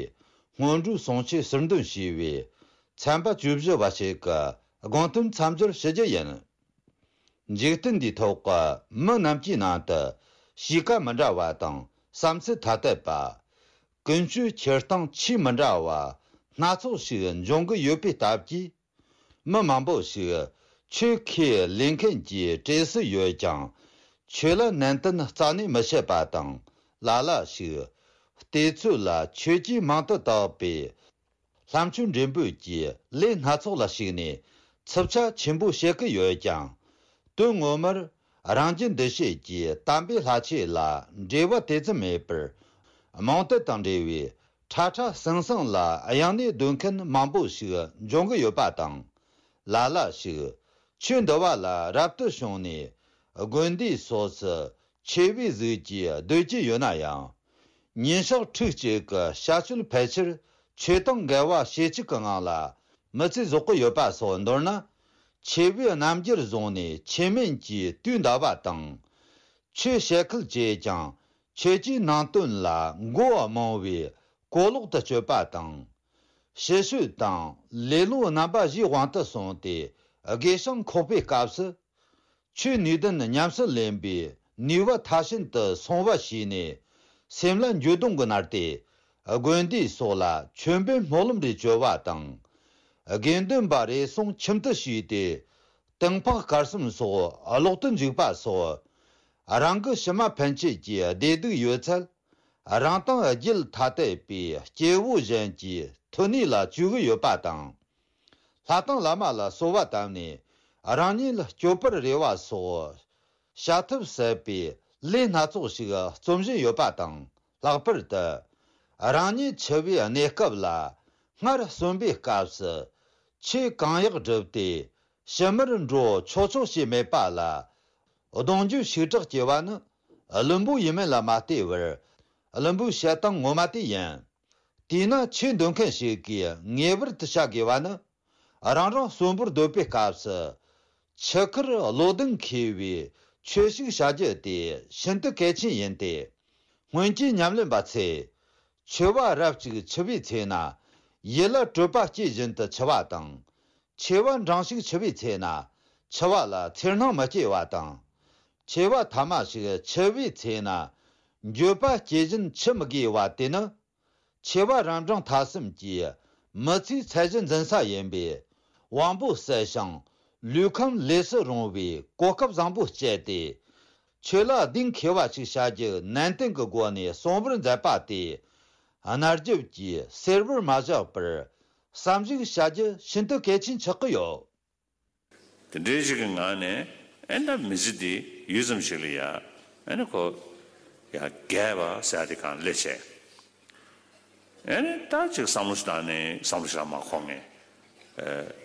སྔོན་འགྲོའི་གསུང་ཆོས་ཟུར་འདོན་ཞུས་པའི་ཚན་པ་བཅུ་བཞི་པ་ཞིག་གི་དགོངས་དོན་མཚམས་སྦྱོར་ཞུ་རྒྱུ་ཡིན། འཇིག་རྟེན་འདིའི་ཐོག་གི་མི་རྣམས་ཀྱི་ནང་དུ་གཤིས་ཀ་མི་འདྲ་བ་དང་བསམ་ཚུལ་ཐ་དད་པ། ཀུན་སྤྱོད་འཁྱེར་སྟངས་ཆེས་མི་འདྲ་བ་སྣ་ཚོགས་ཤིག་འབྱུང་གི་ཡོད་པའི་སྟབས་ཀྱིས། མི་མང་པོ་ཞིག་ཆོས་ཁས་ལེན་མཁན་གྱི་གྲས་སུ་ཡོད་ཀྱང་། ཆོས་ལ་ནན་ཏན་རྩ་ནས་མི་བྱེད་པ་དང་། ལ་ལ་ཞིག་བལྟས་ཚོད་ལ་ཆོས་ཀྱི་མིང་དུ་བཏགས་པའི་ལྷ་མཆོད་འབྲེལ་འབུལ་གྱི་ལས་སྣ་ཚོགས་ལ་ཞུགས་ནས་འཚུབ་ཆ་ཆེན་པོ་བྱེད་ཀྱི་ཡོད་ཀྱང་། དོན་ངོ་མར་རང་རྒྱུད་འདུ་བྱེད་ཀྱི་དམ་པའི་ལྷ་ཆོས་ལ་འབྲེལ་བ་དེ་ཙམ་མེད་པར། རྨོངས་དད་དང་འབྲེལ་བའི་ཁྲ་ཁྲ་ཟང་ཟང་ལ་གཡེང་ནས་སྡོད་མཁན་མང་པོ་ཞིག་འབྱུང་གི་ཡོད་པ་དང་། ལ་ལ་ཞིག་ཆོས་འདུལ་བ་ལ་རབ་ཏུ་བྱུང་ནས་དགོན་སྡེ་སོགས་སུ་ཆོས་པའི་གཟུགས་ཀྱིས་སྡོད་ཀྱི་ཡོད་ན་ཡང་། ཉིན་ཞག་ཕྲུགས་གཅིག་གི་བྱ་སྤྱོད་ཕལ་ཆེར་ཆོས་དང་འགལ་བ་ཞེ་གཅིག་གི་ངང་ལ་མི་ཚེ་རྫོགས་ཀྱི་ཡོད་པ་སོགས། མདོར་ན། ཆོས་པའི་རྣམ་འགྱུར་བཟུང་ནས་ཆོས་མིན་གྱི་དུས་འདའ་བ་དང་། ཆོས་བཤད་ཁུལ་བྱས་ཀྱང་ཆོས་ཀྱི་ནང་དོན་ལ་མགོ་རྨོངས་པའི་གོ་ལོག་ཏུ་སྤྱོད་པ་དང་། ཕྱི་བཤོལ་དང་ལེ་ལོ་རྣམ་པ་བཞིའི་དབང་དུ་སོང་སྟེ་དགེ་སྦྱོང་ཁོག་པའི་སྐབས་སུ། ཆོས་ནུས་ལྡན་ཉམས་སུ་ལེན་པའི་ནུས་པ་མཐར་ཕྱིན་དུ་སོང་བ་ཞིག་ནས། སེམས་ལ་འགྱོད་གདུང་གིས་མནར་ཏེ། དགོན་སྡེ་སོགས་ལ་ཆོས་འབེལ་སྨོན་ལམ་རེ་བཅོལ་བ་དང་། དགེ་འདུན་པ་རེ་ཟུང་ཁྱིམ་དུ་ཞུགས་ཏེ། ཏིང་ཕག་དཀར་གསུམ་སོགས་ལོག་ཏུ་འཇུག་པ་སོགས། རང་གི་ཕྱི་མ་ཕན་ཆད་ཀྱི་བདེ་སྡུག་ཡོད་ཚད། རང་དང་རྒྱུད་ཐ་དད་པའི་སྐྱེ་བོ་གཞན་གྱི་མཐུ་ནུས་ལ་བཅོལ་གྱི་ཡོད་པ་དང་། ལྷ་དང་བླ་མ་ལ་གསོལ་བ་བཏབ་ནས་རང་ཉིད་ལ་སྐྱོབ་པར་རེ་བ་སོགས། བྱ་ཐབས་ཟད་པའི་ལས་སྣ་ཚོགས་ཤིག་རྩོམ་བཞིན་ཡོད་པ་དང་། ལྷག་པར་དུ། རང་ཉིད་འཆི་བའི་གནས་སྐབས་ལ། སྔར་གསོན་པའི་སྐབས་སུ་ཆོས་གང་ཡག་བསྒྲུབས་ཏེ་ཕྱི་མར་འགྲོ་ཆོག་ཆོག་ཅེས་མེད་པ་ལ། གདུང་རྒྱུད་ཞེ་དྲག་སྐྱེ་བ་ནི་བླུན་པོ་ཡིན་མིན་ལ་མ་ལྟོས་པར། བླུན་པོའི་བཤད་སྟངས་ངོ་མ་དེ་ཡིན། དེས་ན་ཆོས་འདོན་མཁན་ཞིག་གིས་ངེས་པར་དུ་བྱ་དགོས་པ་ནི། རང་རང་གསོན་པོར་སྡོད་པའི་སྐབས་སུ། འཆི་ཁར་བློ་གདེང་འཁེལ་བའི་ཆོས་ཤིག་བྱ་རྒྱུ་དེ་ཤིན་ཏུ་གལ་ཆེན་ཡིན་ཏེ། སྔོན་གྱི་ཉམས་ལེན་པ་ཚོས། འཆི་བ་རབ་ཅིག་འཆི་བའི་ཚེ་ན། ཡིད་ལ་སྤྲོས་པ་སྐྱེས་བཞིན་དུ་འཆི་བ་དང་། འཆི་བ་འབྲིང་ཞིག་འཆི་བའི་ཚེ་ན། འཆི་བ་ལ་འཚེར་སྣང་མི་སྐྱེ་བ་དང་། འཆི་བ་ཐ་མ་ཞིག་འཆི་བའི་ཚེ་ན། འགྱོད་པ་སྐྱེ་བཞིན་འཆི་མི་དགོས་པ་དེ་ནི། འཆི་བ་རབ་འབྲིང་ཐ་གསུམ་གྱི་མི་ཚེའི་ཚད་གཞི་འཛིན་ས་ཡིན་པས། དབང་པོ་གསལ་ཞིང་ལུས་ཁམས་ལས་སུ་རུང་བའི་གོ་སྐབས་བཟང་པོ་སྤྱད་དེ། ཆོས་ལ་གདེང་འཁེལ་བ་ཞིག་བྱ་རྒྱུ་ནན་ཏན་གྱི་སྒོ་ནས་གསོང་བར་མཛད་པ་དེ། གནའ་རྒྱབ་ཀྱི་གསེར་བུར་མ་བཞག་པར་བསམ་གཞིག་བྱ་རྒྱུ་ཤིན་ཏུ་གལ་ཆེན་ཆགས་ཀྱི་ཡོད། དེ་འདྲའི་ཞིག་གི་ངང་ནས་ཨེ་ད་མི་ཚེ་འདི་ཡུད་ཙམ་ཞིག་ལ་ཡ་ཨེ་ནི་ཁོ་ཡ་རྒས་པ་ཟེར་ཡ་དེ་གང་སླེབས་བྱས། ཨེ་ནི་ད་ཅིག་བསམ་བློ་ཞིག་བཏང་ནས་བསམ་བློ་ཞིག་ལ་མ་འཁོར་ངས།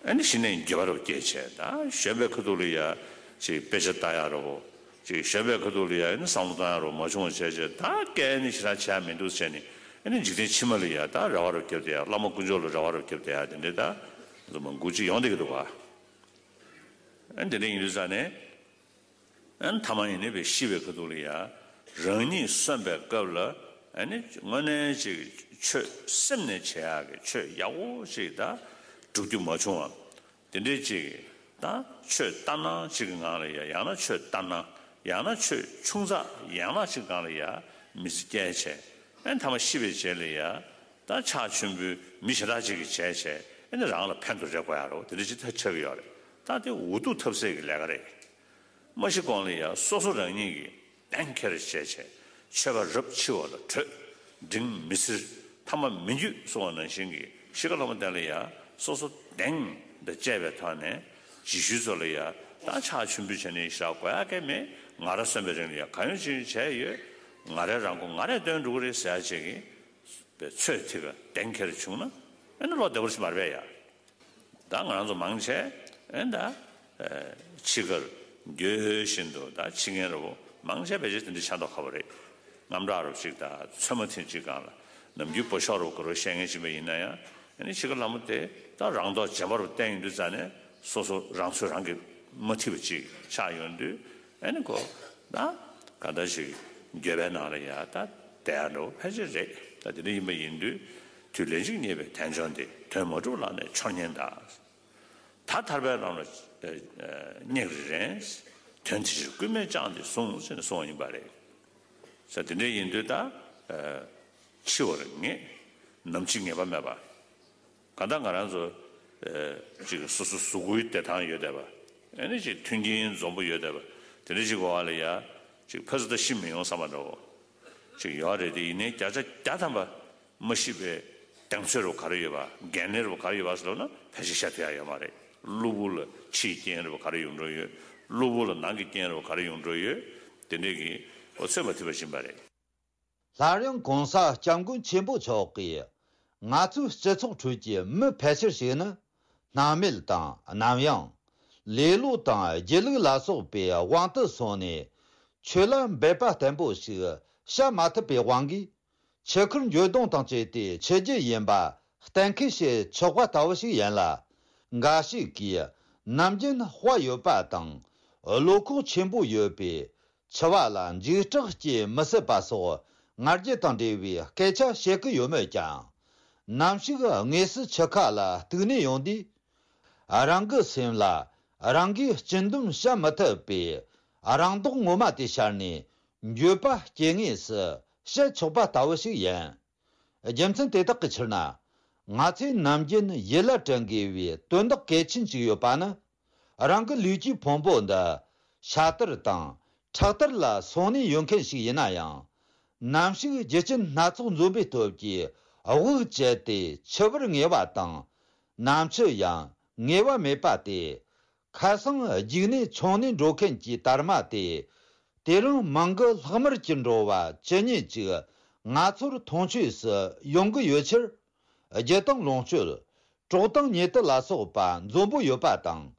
ཨེ་ནི་གཞི་ནས་འགྱོད་པ་རུ་སྐྱེས་བྱས། ད་གཞོན་པའི་ཁ་ཐུག་ལ་ཡ་ཅིག་དཔེ་ཆ་ལྟ་ཡ་རུ། ཅིག་གཞོན་པའི་ཁ་ཐུག་ལ་ཡ་ཨེ་ནི་བསམ་བློ་བཏང་ཡ་རུ་མ་བྱུང་བ་བྱས་བྱས། ད་སྐད་ནི་ཞེ་དྲག་བྱས་མི་འདུག་བྱས་ནས། ཨེ་ནི་འཇིག་རྟེན་ཕྱི་མ་ལ་ཡ་ད་རེ་བ་རུ་བརྒྱབ་བསྡད་ཡ། བླ་མ་དཀོན་མཆོག་ལ་རེ་བ་རུ་བརྒྱབ་བསྡད་ཡ་དེ་འདྲའི་ད་འདུག་མ་འགུལ་ཅིག་ཡོང་བསྡད་ཀྱི་འདུག་ག། ཨེ་དེ་འདྲ་ཡིན་དུས་ཙང་ནས། ཨན་ཐ་མ་ཡིན་ནི་བའི་ཤི་བའི་ཁ་ཐུག་ལ་ཡ། རང་ཉིད་གསོན་པའི་སྐབས་ལ་ཨ་ནི་དངོས་གནས་ཅིག་ཆོས་སེམས་ནས་བྱེད་ཡག་གི་ཆོས་ཡག་པོ་ཅིག་ད་སྒྲུབ་རྒྱུ་མ་བྱུང་བ། དེ་འདྲའི་ཅིག་ད་ཆོས་ལྟར་སྣང་ཅིག་གི་ངང་ལ་ཡ། ཡང་ན་ཆོས་ལྟར་སྣང་། ཡང་ན་ཆོས་ཆུང་ཙག་ཡང་ན་ཅིག་སྒང་ལ་ཡ་མི་ཚེ་སྐྱེལ་བྱས། ཨན་ཐ་མ་ཤི་བའི་རྗེས་ལ་ཡ་ད་ཕྱག་མཆོད་འབུལ་མི་ཞེ་དྲག་ཅིག་གིས་བྱས་བྱས། ཨ་ནི་རང་ལ་ཕན་དུ་རེ་དགོས་ཡ་རོ། དེ་འདྲ་ཅིག་ད་ཆགས་ཀྱི་ཡོད་རེད། ད་དེ་འུ་ཐུག་ཐབས་ཟད་ཀྱི་ལས་ཀ་རེད། མ་ཤི་གོང་ལ་ཡ་སོ་སོ་རང་ཉིད་ཀྱིས་གདེང་འཁེལ་བྱས་བྱས། ཆོས་པ་རབ་འཆི་བ་ལ་བྲོས། འབྲིང་མི་སེར་ཐ་མ་མི་འགྱུར་གསུང་བ་ནང་བཞིན་གྱི་ཤི་ཁ་ལྷ་མོ་བསྟན་ལ་ཡ་སོ་སོ་གདེང་དང་བཅས་པའི་ཐོག་ནས། རྗེས་ཤུལ་ཚོ་ལ་ཡ་ད་ཕྱག་མཆོད་འབུལ་བྱས་ནས་ཞག་དགོས་ཡ་གས་མེད། ང་ར་གསོན་པའི་རིང་ལ་ཡ་གང་ཡོད་ཅི་ཡོད་བྱས་ཡོད། ང་རའི་རང་མགོ་ང་རས་བཏོན་འགྲོ་གི་རེད་ཟེར་ཡ་ཅིག་གི་པའི་ཚོད་ཐིག་ག་གདེང་འཁེལ་བྱུང་ན་ཨེ་ནི་བློ་བདེ་པོ་ཞིག་མ་རེད་པས་ཡ། ད་ང་རང་ཚོ་མང་ཆེ་ཨེ་ད་ཕྱི་ཁར་འགྱོད་བཞིན་དུ་ད་ཕྱི་ངན་ར་བོ་མང་ཆེ་ཕལ་ཆེར་དེ་འདྲ་ཆགས་མདོག་ཁ་པོ་རེད། དངངས་སྐྲག་ར་བོ་ཅིག་དང་ཚོད་མ་ཐིག་ཅིག་སྒང་ལ་ནམ་རྒྱུན་སྤོ་ཤོག་ར་བོ་ག་རེ་བཤད་མཁན་ཅིག་མ་ཡིན་ན་ཡང་ཨེ་ནི་ཕྱི་ཁར་ལྷ་མོ་དེ་ད་རང་མདོག་རྗེན་པ་ར་བོ་བསྟན་ཡོང་དུས་ཙ་ནས་སོ་སོ་རང་ཚོད་རང་གིས་མ་ཐིག་པ་ཅིག་ཆགས་ཡོང་དུས་ཨེ་ནི་ཁོ་ད་ག་འདྲ་ཞིག་འགྱོད་པའི་ནང་ལ་ཡ་ད་བསྡད་ཡ་འགྲོ་ཕལ་ཆེར་རེད། ད་དེ་འདྲ་ཡིན་པ་ཡིན་དུས་དུས་ལན་གཅིག་རྙེད་པའི་དལ་འབྱོར་འདི། དོན་མ་གྲུབ་ལག་ནས་འཆོར་ཉེན་གདའ། ད་ཐར་པའི་ལམ་ལ་སྙེག་རེ་རན། དོན་དེ་ཕྱིར་སྐུལ་མས་བསྐྱངས་ཏེ་ཟུངས་ཟེར་ནས་གསུངས་པ་ཡིན་པ་རེད། ས་དེ་འདྲ་ཡིན་དུས་ད་འཆི་བར་ངེས། ནམ་འཆི་ངེས་པ་མེད་པ། གང་ལྟར་ང་རང་ཚོ་ཅིག་སོ་སོ་གཟུགས་པོའི་བདེ་ཐང་ཡོད་བསྡད་པ། ཨ་ནི་ཅིག་མཐུན་རྐྱེན་འཛོམས་པོ་ཡོད་བསྡད་པ། དེ་འདྲ་ཅིག་གི་འོག་ལ་ཡ་ཅིག་ཕ་ཚོ་ད་ཤི་མི་ཡོང་བསམ་པ་འདྲ་བོ་ཅིག་ཡོད་རེད་དེ། ཡིན་ནའི་བརྒྱ་ཆ་བརྒྱ་ཐམ་པ་མ་ཤི་བའི་གདེང་ཚོད་ར་བོ་ག་རེ་ཡོད་པ། འགན་ལེན་ར་བོ་ག་རེ་ཡོད་པ་ཟེར་ལབ་ན་ཕལ་ཆེར་བཤད་ཐུབ་ཡ་ཡོད་མ་རེད། གློ་བུར་ལ་ཕྱིའི་རྐྱེན་ར་བོ་ག་རེ་ཡོང་འགྲོ་ཡོད། གློ་བུར་ལ་ནང་གི་རྐྱེན་ར་བོ་ག་རེ་ཡོང་འགྲོ་ཡོད། དེ་འདྲས་ཀྱི་འོ་ཚོད་མ་ཐིག་པ་ཕྱིན་པ་རེད། སླར་ཡང་གོང་ས་སྐྱབས་མགོན་ཆེན་པོ་མཆོག་གིས་ང་ཚོའི་སྤྱི་ཚོགས་ཁྲོད་ཀྱི་མི་ཕལ་ཆེར་ཞིག་ནི་སྣང་མེད་དང་གནམ་ཡངས། ལེ་ལོ་དང་སྒྱིད་ལུག་ལ་སོགས་པའི་དབང་དུ་སོང་ནས་ཆོས་ལ་འབད་པ་བརྟན་པོ་ཞིག་བྱ་མ་ཐུབ་པའི་དབང་གིས། ཆུ་ཁར་འགྱོད་གདུང་དང་བཅས་ཏེ་འཆི་རྒྱུ་ཡིན་པ་གཏན་འཁེལ་བྱེད་ཆོག་པ་ལྟ་བུ་ཞིག་ཡིན་ལ། འགའ་ཞིག་གིས་ནམ་རྒྱུན་དཔའ་ཡོད་པ་དང་བློ་ཁོག་ཆེན་པོ་ཡོད་པས་འཆི་བ་ལ་འཇིགས་སྐྲག་སྐྱེ་མི་སྲིད་པ་སོགས་ང་རྒྱལ་དང་འབྲེལ་བའི་སྐད་ཆ་བཤད་ཀྱི་ཡོད་མོད་ཀྱང་། ནམ་ཞིག་དངོས་སུ་འཆི་ཁ་ལ་གཏུགས་ནས་ཡོང་དུས། རང་གི་སེམས་ལ་རང་གིས་སྤྱི་འདོམས་བྱ་མི་ཐུབ་པའི་རང་མདོག་ངོ་མ་དེ་ཤར་ནས་འགྱོད་པ་སྐྱེ་ངེས་སུ་བཤད་ཆོག་པ་ལྟ་བུ་ཞིག་ཡིན། རྒྱུ་མཚན་དེ་དག་གི་ཕྱིར་ན། ང་ཚོས་ནམ་རྒྱུན་ཡིད་ལ་དྲན་དགོས་པའི་དོན་དག་གལ་ཆེན་ཞིག་ཡོད་པ་ནི། རང་གི་ལུས་ཀྱི་ཕུང་པོ་འདི་ཤ་དར་དང་ཁྲག་དར་ལ་སོང་ནས་ཡོད་མཁན་ཞིག་ཡིན་ན་ཡང་། ནམ་ཞིག་རྒྱུ་རྐྱེན་སྣ་ཚོགས་འཛོམས་པའི་སྟོབས་ཀྱིས་དབུགས་བཅད་དེ་འཆི་བར་ངེས་པ་དང་། ནམ་འཆི་ཡང་ངེས་པ་མེད་པ་སྟེ། ཁ་སང་རྒྱུགས་ནས་མཆོང་ནས་འགྲོ་མཁན་གྱི་དར་མ་དེ། དེ་རིང་མིང་གི་ལྷག་མར་གྱུར་འགྲོ་བ་ཇི་སྙེད་ཅིག་ང་ཚོར་མཐོང་ཆོས་སུ་ཡོང་གི་ཡོད་ཕྱིར། རྒྱུ་དང་ལོངས་སྤྱོད། གྲོགས་དང་ཉེ་དུ་ལ་སོགས་པ་འཛོམས་པོ་ཡོད་པ་དང་།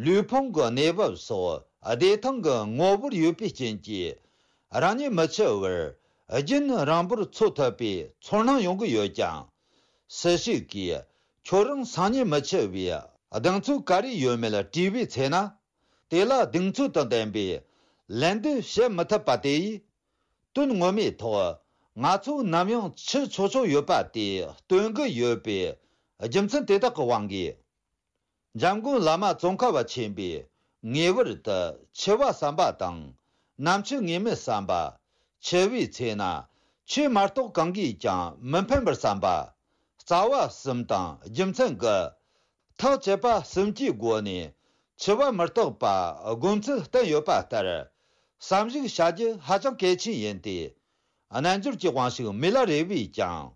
ལུས་ཕུང་གི་གནས་བབ་སོགས་བདེ་ཐང་གི་ངོ་བོར་ཡོད་པའི་རྐྱེན་གྱིས། རང་ཉིད་མི་འཆི་བར་རྒྱུན་རིང་པོར་འཚོ་ཐུབ་པའི་ཚོར་སྣང་ཡོང་གི་ཡོད་ཀྱང་། སུ་ཞིག་གིས་ཁྱོད་རང་སང་ཉིན་མི་འཆི་བའི་གདེང་ཚོད་ག་རེ་ཡོད་མེད་དྲིས་པའི་ཚེ་ན། དེ་ལ་གདེང་ཚོད་དང་ལྡན་པའི་ལན་འདེབས་བྱེད་མི་ཐུབ་པ་དེ་ཡིས། དོན་ངོ་མའི་ཐོག་ང་ཚོ་ནམ་ཡང་འཆི་ཆོག་ཆོག་ཡོད་པ་དེ་སྟོན་གྱི་ཡོད་པའི་རྒྱུ་མཚན་དེ་དག་གི་དབང་གིས། འཇམ་མགོན་བླ་མ་ཙོང་ཁ་པ་ཆེན་པོས་ངེས་པར་དུ་འཆི་བ་བསམ་པ་དང་། ནམ་འཆི་ངེས་མེད་བསམ་པ། འཆི་བའི་ཚེ་ན་ཆོས་མ་གཏོགས་གང་གིས་ཀྱང་མི་ཕན་པར་བསམ་པ། རྩ་བ་གསུམ་དང་རྒྱུ་མཚན་དགུ། ཐག་བཅད་པ་གསུམ་གྱི་སྒོ་ནས་འཆི་བ་མི་རྟག་པ་སྒོམ་ཚུལ་བསྟན་ཡོད་པ་ལྟར། བསམ་གཞིག་བྱ་རྒྱུ་ཧ་ཅང་གལ་ཆེན་ཡིན་ཏེ། རྣལ་འབྱོར་གྱི་དབང་ཕྱུག་མི་ལ་རས་པས་ཀྱང་།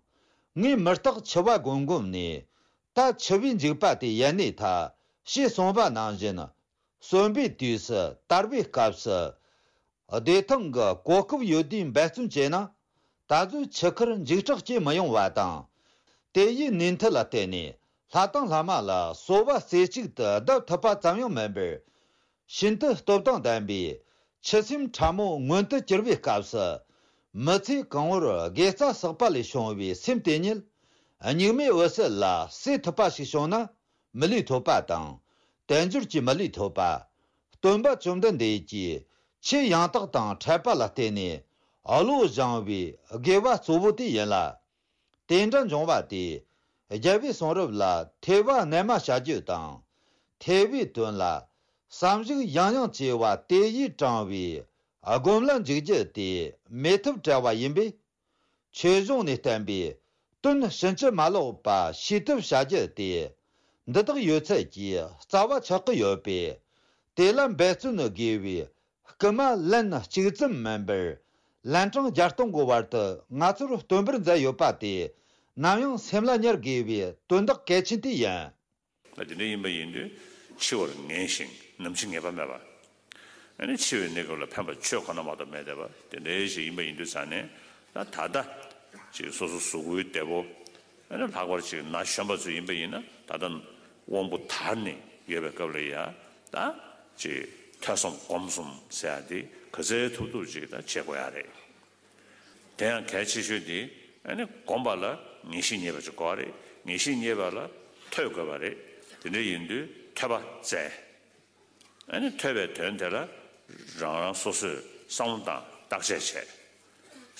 ངས་མི་རྟག་འཆི་བ་སྒོམ་སྒོམ་ནས། ད་འཆི་བའི་འཇིགས་པ་དེ་ཡལ་ནས་ཐལ། ཞེས་གསུངས་པ་ནང་བཞིན། གསོན་པའི་དུས་སུ་དར་བའི་སྐབས་སུ། བདེ་ཐང་གི་གོ་སྐབས་ཡོད་དུས་འབད་བརྩོན་བྱས་ན། ད་གཟོད་འཆི་ཁར་འཇིགས་སྐྲག་སྐྱེ་མི་ཡོང་བ་དང་། དེ་ཡི་ནུས་མཐུ་ལ་བརྟེན་ནས་ལྷ་དང་ལྷ་མ་ལ་གསོལ་བ་རྩེ་གཅིག་ཏུ་གདབ་ཐུབ་པ་ཙམ་ཡང་མིན་པར། ཤིན་ཏུ་སྟོབས་དང་ལྡན་པའི་ཆུ་སེམས་ཕྲ་མོ་མངོན་དུ་གྱུར་པའི་སྐབས་སུ། མི་ཚེ་གང་བོར་དགེ་རྩ་བསགས་པ་ལས་བྱུང་བའི་སེམས་དེ་ཉིད། གཉུག་མའི་འོད་གསལ་ལ་སྲེ་ཐུབ་པ་ཞིག་བྱུང་ན། མི་ལུས་ཐོབ་པ་དང་། དལ་འབྱོར་གྱི་མི་ལུས་ཐོབ་པ། སྟོན་པ་བཅོམ་ལྡན་འདས་ཀྱིས་ཆོས་ཡང་དག་དང་འཕྲད་པ་ལ་བརྟེན་ནས་བློ་སྦྱང་བའི་དགེ་བ་གཙོ་བོ་དེ་ཡིན་ལ། དེ་འདྲ་འབྱུང་བ་དེས་རྒྱལ་བའི་གསུང་རབ་ལ་ཐོས་པ་རྣལ་མ་བྱ་རྒྱུ་དང་། ཐོས་པའི་དོན་ལ་བསམ་གཞིག་ཡང་ཡང་བྱས་པ་དེ་ཡིས་དྲངས་པའི་སྒོམ་ལ་འཇུག་རྒྱུ་དེ་མེད་ཐབས་བྲལ་བ་ཡིན་པས། ཆོས་གཞུང་ནས་བསྟན་པའི་དོན་ཕྱིན་ཅི་མ་ལོག་པ་ཤེས་ཐབས་བྱ་རྒྱུ་དེ། འདི་དག་ཡོད་ཚད་ཀྱི་རྩ་བ་ཆགས་ཀྱི་ཡོད་པས། དེ་ལ་འབད་བརྩོན་དགོས་པའི་སྐུལ་མ་ལན་གཅིག་ཙམ་མིན་པར། ལན་གྲངས་བརྒྱ་སྟོང་གི་བར་དུ་ང་ཚོར་སྟོན་པར་མཛད་ཡོད་པ་དེ། ནམ་ཡང་སེམས་ལ་ཉར་དགོས་པའི་དོན་དག་གལ་ཆེན་དེ་ཡིན། ད་དེ་འདྲ་ཡིན་པ་ཡིན་དུས། འཆི་བར་ངེས་ཤིང་ནམ་འཆི་ངེས་པ་མེད་པ། ཨ་ནི་འཆི་བའི་གནས་སྐབས་ལ་ཕན་པ་ཆོས་ཁོ་ན་མ་གཏོགས་མེད་བསྡད་པ་དེ་འདྲའི་ཞིག་ཡིན་པ་ཡིན་དུས་ཙང་ནས། ད་ད་ལྟ་ཅིག་སོ་སོ་གཟུགས་པོའི་བདེ་པོ། ཨ་ནི་ལྷག་པར་ཅིག་ན་གཞོན་པ་ཚོ་ཡིན་པ་ཡིན་ན། ད་ལྟ་དབང་པོ་དར་ནས་ཡོད་པའི་སྐབས་ལ་ཡ། ད་ཅིག་ཐོས་བསམ་སྒོམ་གསུམ་ཟེར་ཡ་དེ་ག་ཚོད་ཐུབ་ཐུབ་ཅིག་ད་བྱེད་དགོས་ཡ་རེད། དེ་ཡང་གལ་ཆེ་ཤོས་དེ། ཨ་ནི་སྒོམ་པ་ལ་ངེས་ཤེས་རྙེད་པ་ཅིག་དགོས་པ་རེད། ངེས་ཤེས་རྙེད་པ་ལ་ཐོས་དགོས་པ་རེད། དེ་འདྲ་ཡིན་དུས་ཐོས་པ་བཙལ། ཨ་ནི་ཐོས་པའི་དོན་དེ་ལ་རང་རང་སོ་སོས་བསམ་བློ་བཏང་བརྟག་དཔྱད་བྱས།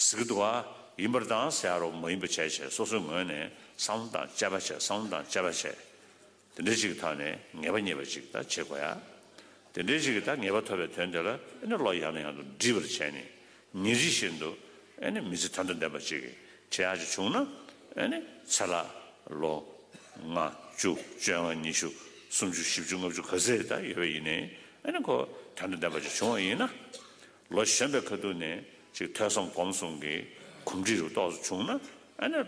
ཟེར་གི་འདུག་བ། ཡིན་པར་བཏང་ཟེར་ཡ་རོ་མ་ཡིན་པ་བྱས་བྱས། སོ་སོའི་ངོས་ནས་བསམ་བློ་བཏང་དཔྱད་པ་བྱས། བསམ་བློ་བཏང་དཔྱད་པ་བྱས། དེ་འདྲ་ཅིག་གི་ཐོག་ནས་ངེས་པ་རྙེད་པ་ཅིག་ད་བྱེད་དགོས་ཡ། དེ་འདྲའི་ཅིག་གི་ད་ངེས་པ་ཐོབ་པའི་དོན་དེ་ལ་ཨ་ནི་བློ་ཡང་ནས་ཡང་དུ་འདྲིས་པར་བྱས་ནས། ཉིན་རེ་བཞིན་དུ་ཨ་ནི་མི་ཚེ་དོན་དང་ལྡན་པ་ཅིག་བྱེད་ཡག་ཅིག་བྱུང་ན། ཨ་ནི་ཚེ་ལ་ལོ་ལྔ་བཅུ་བཅོ་ལྔ་ཉི་ཤུ་སུམ་ཅུ་བཞི་བཅུ་ལྔ་བཅུ་ག་ཚད་ད་ཡོད་པ་ཡིན་ནའི། ཨ་ནི་ཁོ་དོན་དང་ལྡན་པ་ཅིག་བྱུང་བ་ཡིན་ན། ལོ་གཞོན་པའི་ཁ་ཐུག་ནས་ཅིག་ཐོས་བསམ་སྒོམ་གསུམ་གྱི་གོམས་འདྲིས་རུ་ཏོག་ཙམ་བྱུང་ན། ཨ་ནི་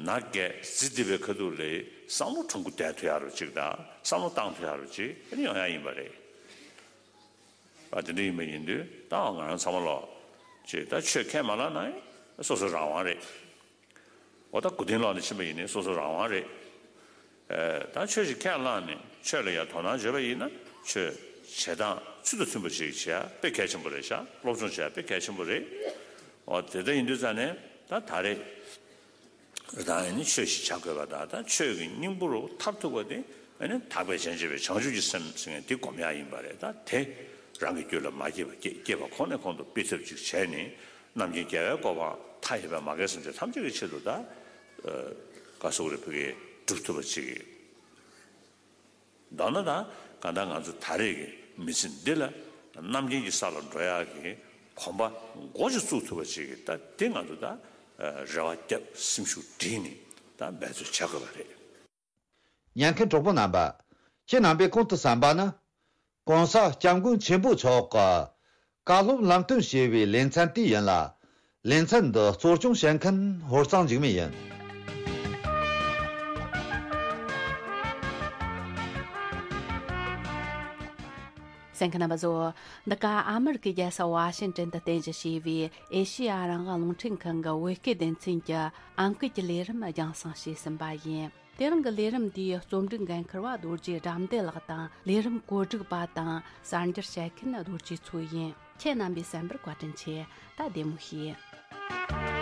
ན་རྒས་ཟི་ལྡི་བའི་ཁ་ཐུག་ལ་བསམ་བློ་ཁྲོམ་སྐུ་བསྡད་ཐུབ་ཡག་རུ་ཅིག་དང་། བསམ་བློ་བཏང་ཐུབ་ཡག་རུ་ཅིག་ཨ་ནི་ཡོང་ཡག་ཡིན་པ་རེད། ཨ། དེ་འདྲ་ཡིན་པ་ཡིན་དུས་ད་ང་རང་ཚང་མ་ལོག་ཅིག་ད་ཆོས་ཁས་མ་བླངས་ན་སོ་སོ་རང་དབང་རེད། འོ་ད་སྐུ་རྟེན་ལོག་ནས་ཕྱིན་པ་ཡིན་ནའི་སོ་སོ་རང་དབང་རེད། ཨ། ད་ཆོས་ཤིག་ཁས་བླངས་ནས་ཆོས་ལ་ཡང་དོ་སྣང་བྱས་པ་ཡིན་ན། ཆོས་བྱེད་སྟངས་ཚུལ་དང་མཐུན་པ་ཞིག་བྱེད་ཡ་དཔེ་གལ་ཆེན་པོ་རེད་ཤག་སློབ་སྦྱོང་བྱེད་ཡ་དཔེ་གལ་ཆེན་པོ་རེད། འོ་དེ་འདྲ་ཡིན་དུས་ཙང་ནས་ད་ད་རེས། ད་ཨ་ནི་ཆོས་ཤིག་བྱ་དགོས་པ་དང་། ད་ཆོས་ཀྱི་སྙིང་པོ་རུ་མཐར་ཐུག་པ་དེ་ཨ་ནི་ཐར་པའི་སྤྱན་འབྱེད་པའི་བྱང་ཆུབ་ཀྱི་སེམས་ཟེར་མཁན་དེ་སྒོམ་ཡག་ཡིན་པ་རེད། ད་དེ་རང་གི་རྒྱུད་ལ་མ་སྐྱེས་པ་སྐྱེ་སྐྱེས་པ་ཁོ་ནས་ཁོང་དུ་སྤེལ་ཐབས་ཅིག་བྱས་ནས། རྣམ་མཁྱེན་རྒྱལ་བའི་གོ་འཕང་མཐའ་ཡས་པའི་མ་རྒན་སེམས་ཅན་ཐམས་ཅད་ཀྱི་ཆེད་དུ་ད། ཨ། ག་ཟེར་དགོས་རེད། ཕ་གིར་སྒྲུབ་ཐུབ་པ་ཅིག་མདོར་ན་ད་གང་ལྟར་ང་ཚོ་ད་རེས་ཀྱི་མི་ཚེ་འདི་ལ་རྣམ་མཁྱེན་གྱི་ས་ལ་འགྲོ་ཡག་གི་གོམ་པ་འགོ་ཅིག་བཙུགས་ཐུབ་པ་ཅིག་གི་ད་དེ་ང་ཚོ་ད་རེ་བ་བརྒྱབ། སེམས་ཤུགས་བསྒྲིལ་ནས་ད་འབད་རྩོལ་བྱ་དགོས་པ་རེད། ཉན་མཁན་གྲོགས་པོ་རྣམ་པ། ཁྱེད་རྣམ་པས་གོང་དུ་གསན་པ་ནི། ༸གོང་ས་༸སྐྱབས་མགོན་ཆེན་པོ་མཆོག་གི་བཀའ་སློབ་ལམ་སྟོན་ཞེས་པའི་ལེ་ཚན་དེ་ཡིན་ལ། ལེ་ཚན་འདི་གཙོ་སྐྱོང་བྱེད་མཁན་ཧོར་གཙང་འཇིགས་མེད་ཡིན། གསན་མཁན་རྣམ་པ་ཚོ། འདི་ག་ཨ་མི་རི་ཀའི་རྒྱལ་ས་ཝ་ཤིང་ཏོན་དུ་རྟེན་གཞི་བྱས་པའི་ཨེ་ཤེ་ཡ་རང་དབང་རླུང་འཕྲིན་ཁང་གི་བོད་སྐད་སྡེ་ཚན་གྱི་ཨང་ཀི་གི་ལས་རིམ་རྒྱང་སྲིང་བྱས་ཟིན་པ་ཡིན། དེ་རིང་གི་ལས་རིམ་འདིའི་རྩོམ་སྒྲིག་འགན་འཁུར་བ་རྡོ་རྗེ་དགྲ་འདུལ་ལགས་དང་། ལས་རིམ་གོ་སྒྲིག་པ་དང་གསར་འགྱུར་བཤད་མཁན་རྡོ་རྗེ་མཚོ་ཡིན། ཁྱེད་རྣམ་པས་གསན་པར་བཀའ་དྲིན་ཆེ། ད་བདེ་མོ་བྱོས།